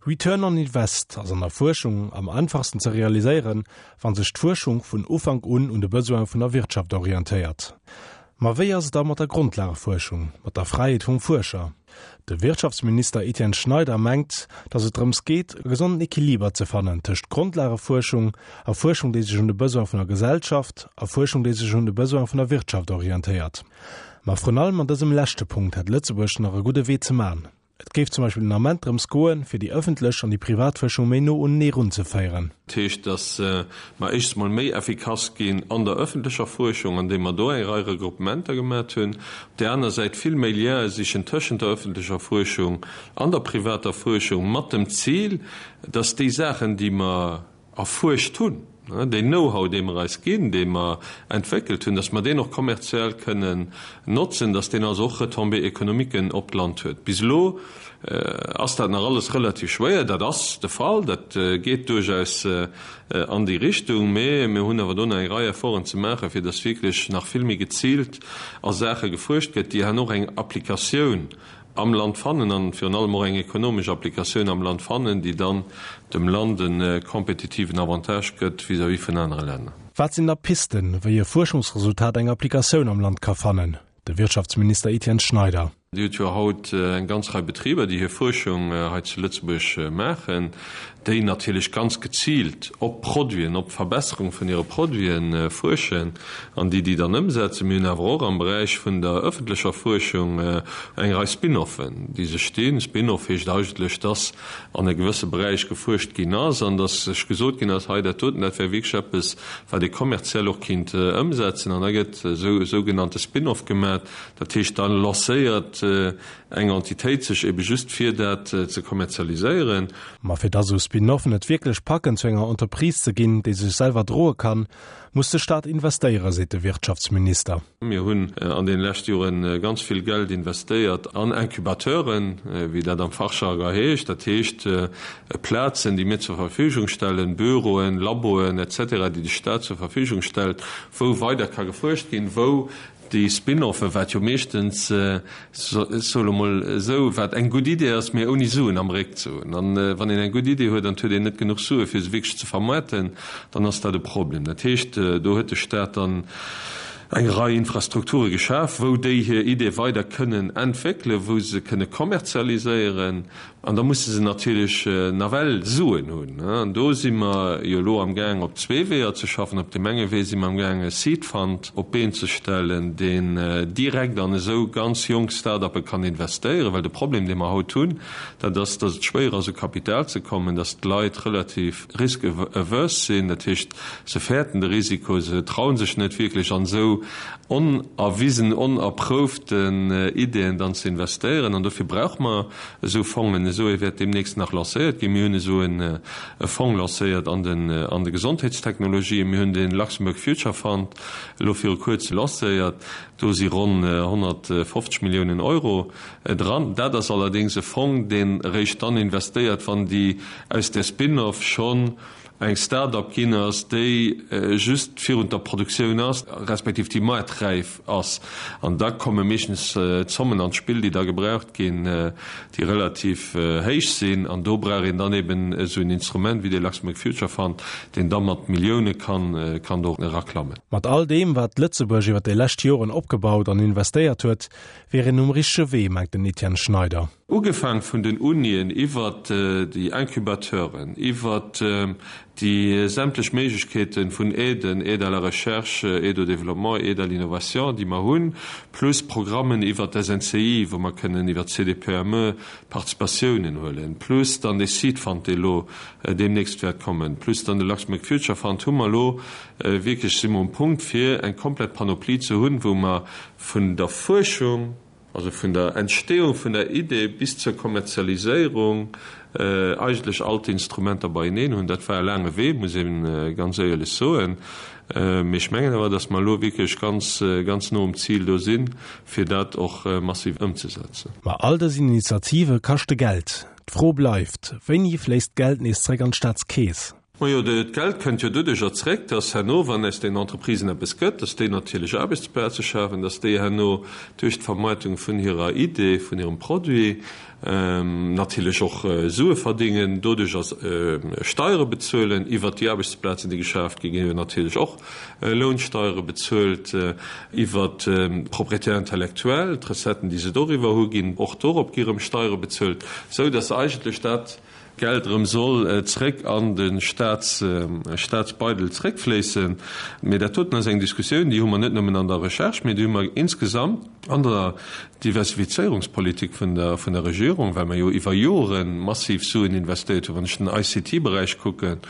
Return on Invest ass an der Fuerschung am einfachsten ze realiséieren, wa sech d'Fuerschung vun Ufank un un de Besoine vun der Wirtschaft orientéiert. Ma wéi ass et da mat der Grondlagefuerschung, mat der Fräiheet vum Fuerscher? De Wirtschaftsminister Etienne Schneider mengt, datt et drëms geet, e gesonden Equiliber ze fannen tëscht Grondlagefuerschung a Fuerschung, déi sech un de Besoine vun der Gesellschaft a Fuerschung, déi sech un de Besoine vun der Wirtschaft orientéiert. Ma vrun allem an dësem leschte Punkt hätt Lëtzebuerg nach e gudde Wee ze man. Et géif zum Beispill den Ament drëms goen, fir déi ëffentlech an déi privat Fuerschung méi no unenee runzeféieren. Dat heescht, datt mer éischts mol méi effikass ginn an der ëffentlecher Fuerschung, andeem mer do eng Rei Regruppementer gemat hunn. Op där aner Säit vill méi Liene sichen tëschent der ëffentlecher Fuerschung an der privater Fuerschung, mat dem Zil, datt déi Saachen, déi mer erfuerscht hunn, deen Know-how, dee mer eis ginn, dee mer entwéckelt hunn, dass mer deen och kommerziell kënnen notzen, dass deen also och Retombées économiquen op d'Land huet. Bis elo ass dat nach alles relativ schwéier. Dat ass de Fall, dat geet duerchaus an déi Richtung, mä mir hunn awer do nach eng Rei Efforten ze maachen, fir dass wierklech nach vill méi geziilt a Saache gefuerscht gëtt, déi herno och eng Applikatioun am Land fannen an virun allem och eng ekonomesch Applikatioun am Land fannen, déi dann dem Land e kompetitiven Avantage gëtt vis-à-vis vun anere Länner. Wat sinn da Pisten, wéi e Fuerschungsresultat eng Applikatioun am Land ka fannen? De Wirtschaftsminister Etienne Schneider. Dir hutt jo haut eng ganz Rei Betriber, déi hir Fuerschung hei zu Lëtzebuerg maachen, déi natierlech ganz geziilt op Produiten, op d'Verbesserung vun hire Produite fuerschen an déi déi dann ëmsetzen. Mir hunn awer och am Beräich vun der ëffentlecher Fuerschung eng Rei Spin-offen, déi sech dinn. Spin-off heescht eigentlech, dass an e gewësse Beräich gefuerscht ginn ass an dass sech gesot ginn ass, hei dat doten, dat wär wierklech eppes, wat ee kommerziell och kinnt ëmsetzen. An da gëtt esou e sougenannte Spin-off gemaach. Dat heescht, da lancéiert eng Entitéit sech ebe just fir dat ze kommerzialiséieren. Ma fir dass esou Spin-offen et wierklech packen zu enger Entreprise ze ginn, déi sech selwer droe kann, muss de Staat investéieren, seet de Wirtschaftsminister. Mir hunn an deene leschte Jore ganz vill Geld investéiert an Incubateuren, wéi dat am Fachjargon heescht. Dat heescht Plazen, déi mir zur Verfügung stellen, Büroen, Laboen et cetera, déi de Staat zur Verfügung stellt, wou weider ka gefuerscht ginn, wou Déi Spin-offe, wat jo meeschtens, ech soe lo mol esou, wat eng gutt Idee ass, mee ouni Suen am Réck ze hunn. An wann een eng gutt Idee huet an et huet een net genuch Sue fir se wierklech ze vermaarten, dann ass dat e Problem. Dat heescht, do huet de Staat dann eng Rei Infrastrukture geschaf, wou déi hir Idee weider kënnen entwéckelen, wou se kënne kommerzialiséieren. An da musse se natierlech nawell Suen hunn. An do si mer jo elo amgaang op zwee Weeër ze schaffen. Op deem enge Wee si mer amgaang e Seed Fund op d'Been ze stellen, deen direkt an esou ganz jonk Start-uppe kann investéieren. Well de Problem, dee mer haut hunn, dat ass, datt et schwéier ass u Kapital ze kommen, datt d'Leit relativ risk averse sinn, dat heescht, se fäerten de Risiko, se traue sech net wierklech an esou onerwisen, onerprouften Ideeën dann ze investéieren. An dofir brauche mer Esou Fongen, esou ee wäert deemnächst nach lancéiert ginn. Mir hunn esou e Fong lancéiert an den an de Gesondheetstechnologien. Mir hunn de Luxembourg Future Fund elo viru kuerzem lancéiert. Do si ronn 150 Milliounen Euro dran. Dat ass allerdéngs e Fong, deen eréischt dann investéiert, wann déi aus där Spin-off schonn eng Start-up ginn ass, déi just virun der Produktioun ass, respektiv déi maarträif ass. An da komme meeschtens Zommen an d'Spill, déi da gebraucht ginn, déi relativ héich sinn. An do brauch een dann eben esou en Instrument wéi dee Luxembourg Future Fund, deen da mat Millioune kann kann do eraklammen. Mat all deem, wat Lëtzebuerg iwwer déi lescht Joren opgebaut an investéiert huet, wier een um richtege Wee, mengt den Etienne Schneider. Ugefaang vun den Unien iwwert déi Incubateuren, iwwert déi sämtlech Méiglechkeete vun Aiden, Aide à la recherche, Aide au développement, Aide à l'innovation, déi mer hunn, plus Programmen iwwert d'SNCI, wou mer kënnen iwwert d'CDPME Participatiounen huelen, plus dann dee Seed Fund, dee elo deemnächst wäert kommen, plus dann de Luxembourg Future Fund, hu mer elo wierklech, si mer um Punkt, fir eng komplett Panoplie ze hunn, wou mer vun der Fuerschung, Also vun der Entstehung vun der Idee bis zur Kommerzialiséierung eigentlech all d'Instrumenter beieneen hunn. Dat war e laange Wee, muss ee ganz éierlech soen. Mee ech mengen awer, datt mer elo wierklech ganz, ganz no um Zil do sinn, fir dat och massiv ëmzesetzen. Ma all dës Initiative kaschte Geld. D'Fro bleift, Wéini fléisst d'Geld nees zréck an d'Staatskeess? Majo, d'Geld kënnt jo doduercher zréck, dass herno, wann aus den Entreprisen eppes gëtt, dass déi natierlech Aarbechtsplaze schafen, dass déi herno duerch d'Vermaartung vun hirer Idee, vun hirem Produit natierlech och Sue verdingen, doduercher Steiere bezuelen. Iwwert déi Aarbechtsplazen, déi geschaaft ginn, gi jo natierlech och Lounsteiere bezuelt. Iwwert d'Propriété intellectuelle, d'Recetten, déi se doriwwer hu ginn, och dorop gi rëm Steiere bezuelt, esou dass eigentlech dat, Geld erëm soll zréck an de Staatsbeidel zréckfléissen. Mee dat doten ass eng Diskussioun, déi hu mer net nëmmen an der Recherche, mee déi hu mer insgesamt an der Diversifizéierungspolitik vun der Regierung, well mer jo iwwer Jore massiv Suen investéiert hunn. Wann ech den ICT-Beräich kucken,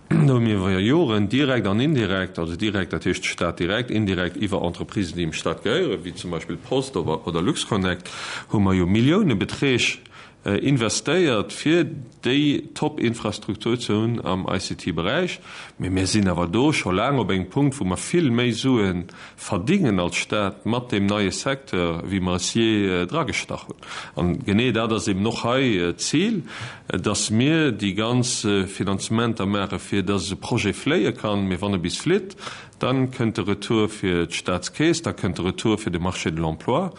do hu mir iwwer Joren direkt an indirekt, also direkt, dat heescht de Staat direkt, indirekt iwwer Entreprisen, déi dem Staat gehéieren, wéi zum Beispill d'Post oder LuxConnect, hu mer jo Milliounebeträg investéiert, fir déi Top-Infrastruktur ze hunn am ICT-Beräich. Mee mir sinn awer do scho laang op engem Punkt, wou mer vill méi Sue verdingen als Stat mat deem neie Secteur, wéi mer es jee dragestach hunn. An genee dat ass eben och hei d'Zil, dass mir déi ganz Finanzementer maachen, fir dass e Projet fléie kann. Mee wann e bis flitt, dann kënnt de Retour fir d'Statskeess, da kënnt de Retour fir de Marché de l'emploi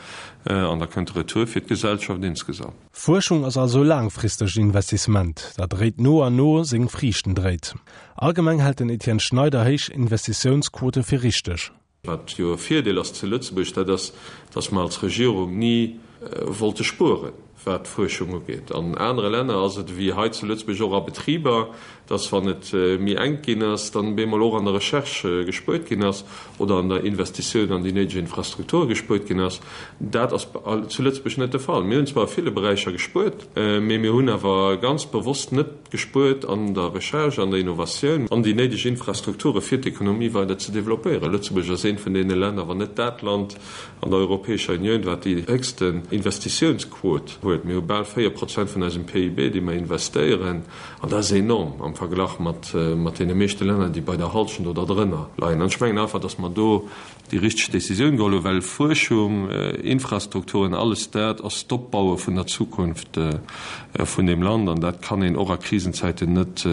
an da kënnt de Retour fir d'Gesellschaft insgesamt. Fuerschung ass also e laangfristegt Investissement, dat eréit no an no seng Friichten dréit. Allgemeng hält den Etienne Schneider héich Investitiounsquote fir richteg. Wat jo e Virdeel ass zu Lëtzebuerg, dat ass, datt mer als Regierung ni wollte spueren, wat d'Fuerschung ugeet. An anere Länner ass et ewéi hei zu Lëtzebuerg och a Betriber, datt wann et méi enk ginn ass, dann bemol och an der Recherche gespuert ginn ass oder an der Investitioun an déi néideg Infrastrukture gespuert ginn ass. Dat ass zu Lëtzebuerg net de Fall. Mir hunn zwar a ville Beräicher gespuert, mee mir hunn awer ganz bewosst net gespuert an der Recherche, an der Innovatioun, an déi néideg Infrastrukture fir d'Ekonomie weider ze développéieren. Lëtzebuerg ass eent vun deene Länner, wann net dat Land an der Europäescher Unioun, wat déi héchsten Investitiounsquot huet. Mir hu bal 4 Prozent vun eisem PIB, déi mer investéieren, an dat ass enorm am Verglach mat deene meeschte Länner, déi bei der Halschent oder drënner leien. An ech mengen einfach, datt mer do déi richteg Décisioun geholl hunn, well Fuerschung, Infrastrukturen, alles dat ass d'Opbaue vun der Zukunft vun deem Land an dat kann een och a Krisenzäiten net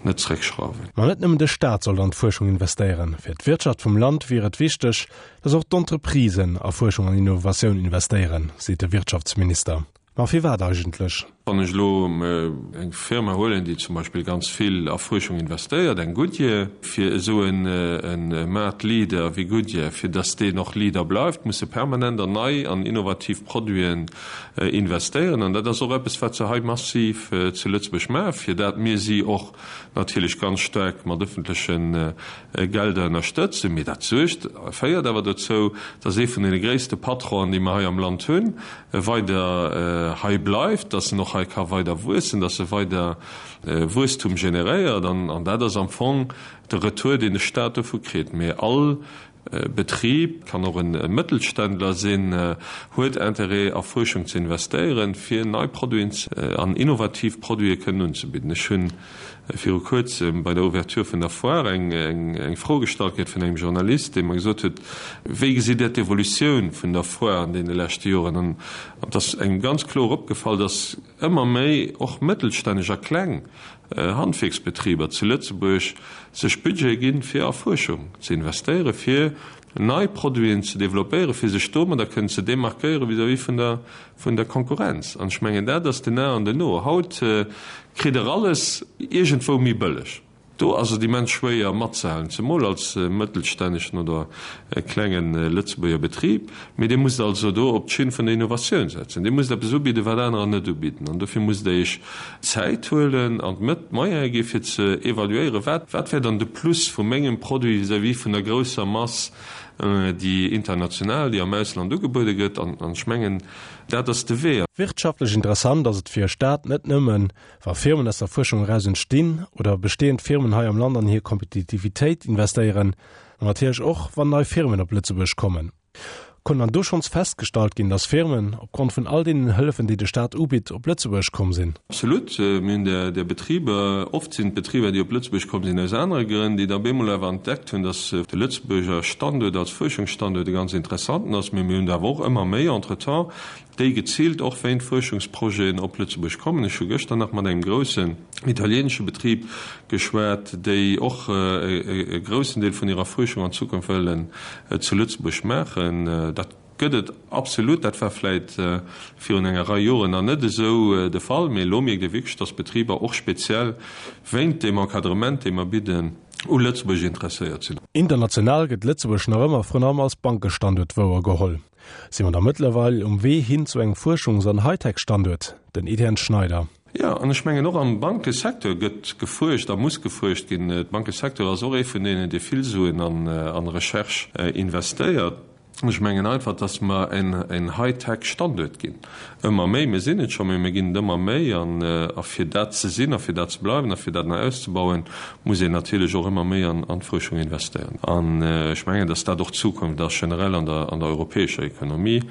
net zréckschrauwen. Ma net nëmmen de Staat sollt an d'Fuerschung investéieren. Fir d'Wirtschaft vum Land wier et wichteg, datt och d'Entreprisen a Fuerschung an Innovatioun investéieren, seet de Wirtschaftsminister. Ma firwat eigentlech? Wann ech elo eng Firma huelen, déi zum Beispill ganz vill a Fuerschung investéiert, eng Goodyear, fir esou e Maartleader wéi Goodyear, fir datt deen och Leader bleift, muss e permanent an nei an innovativ Produiten investéieren. An dat ass och eppes, wat se hei massiv zu Lëtzebuerg maachen, fir dat mir si och natierlech ganz staark mat ëffentleche Gelder ënnerstëtzen. Mee dat suergt, féiert awer dozou, datt ee vun deene gréisste Patronen, déi mer hei am Land hunn, weider hei bleift, dass en och hei ka weider wuessen, dass e weider Wuesstum generéiert. An dat ass am Fong de Retour, deen de Stat dovu kritt. Mee all Betrib, kann och e Mëttelständler sinn, huet Intérêt a Fuerschung ze investéieren, fir nei Produiten an innovativ Produite kënnen unzebidden. Ech hunn viru kuerzem bei der Ouverture vun der Foire eng Fro gestallt kritt vun engem Journalist, dee mer gesot huet, Wéi gesitt Dir d'Evolutioun vun der Foire an deene leschte Joren? An et ass engem ganz kloer opgefall, datt ëmmer méi och mëttelstänneg a kleng Handwierksbetriber zu Lëtzebuerg sech Budgete ginn, fir a Fuerschung ze investéieren, fir nei Produiten ze développéieren, fir sech domadder kënnen ze démarquéieren vis-à-vis vun der vun der Konkurrenz. An ech mengen, dat ass den A an den O. Haut kritt Der alles iergendwou méi bëlleg. Do ass et immens schwéier matzehalen, zemol als mëttelstännegen oder klenge Lëtzebuerger Betrib. Mee Dir musst also do op d'Schinn vun der Innovatioun setzen. Dir musst eppes ubidden, wat anerer net ubidden. An dofir musst Der Iech Zäit huelen an d'Moyene gi fir ze evaluéieren, wat wat wär dann de Plus vu mengem Produit vis-à-vis vun der grousser Mass, déi international, déi am Ausland ugebuede gëtt. An ech mengen, dat ass de Wee. Wirtschaftlech interessant ass et fir e Staat net nëmmen, wa Firmen aus der Fuerschung eraus entstinn oder bestehend Firmen hei am Land an hir Kompetitivitéit investéieren, ma natierlech och, wann nei Firmen op Lëtzebuerg kommen. Konnt dann do schonns festgestallt ginn, dass Firmen, opgrond vun all deenen Hëllefen, déi de Staat ubitt, op Lëtzebuerg komm sinn? Absolut. Mir hunn där, där Betriber, oft sinn d'Betriber, déi op Lëtzebuerg komm sinn, aus anere Grënn, déi da bemol awer entdeckt hunn, dass de Lëtzebuerger Standuert als Fuerschungsstanduert e ganz interessanten ass. Mee mir hunn der awer och ëmmer méi entretemps, déi geziilt och wéint Fuerschungsprojeten op Lëtzebuerg kommen. Ech hu gëschter nach mat engem groussen italieenesche Betrib geschwat, déi och e groussen Deel vun hirer Fuerschung an Zukunft wëllen zu Lëtzebuerg maachen. Dat gëtt et absolut. Dat war vläit virun enger Rei Joren nach net esou de Fall, mee elo mierkt ee wierklech, dass Betriber och speziell wéint deem Encadrement, dee mer bidden, u Lëtzebuerg interesséiert sinn. International gëtt Lëtzebuerg nach ëmmer vrun allem als Bankestanduert wouergeholl. Si mer da mëttlerweil um Wee hin zu engem Fuerschungs an Hightech-Standuert? Den Etienne Schneider. Jo, an ech mengen och am Bankesecteur gëtt gefuerscht a muss gefuerscht ginn. De Bankesecteur ass och ee vun deenen, dee vill Suen an Recherche investéiert. Ech mengen einfach, dass mer en Hightech-Standuert ginn, ëmmer méi. Mir sinn et scho, mee mir ginn et ëmmer méi. A fir dat ze sinn a fir dat ze bleiwen a fir dat nach auszebauen, muss een natierlech och ëmmer méi an d'Fuerschung investéieren. An ech mengen, dass dat och d'Zukunft ass, generell an der europäescher Ekonomie.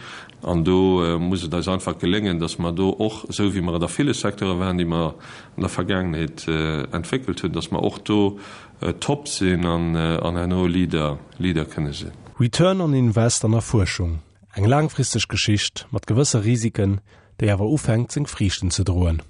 An do muss et eis einfach geléngen, dass mer do och, esou wéi mer et a ville Secteure waren, déi mer an der Vergaangenheet entwéckelt hunn, dass mer och do top sinn an herno Leader, Leader kënne sinn. Return on Invest an der Fuerschung, eng laangfristeg Geschicht mat gewësse Risiken, déi awer ufänkt seng Friichten ze droen.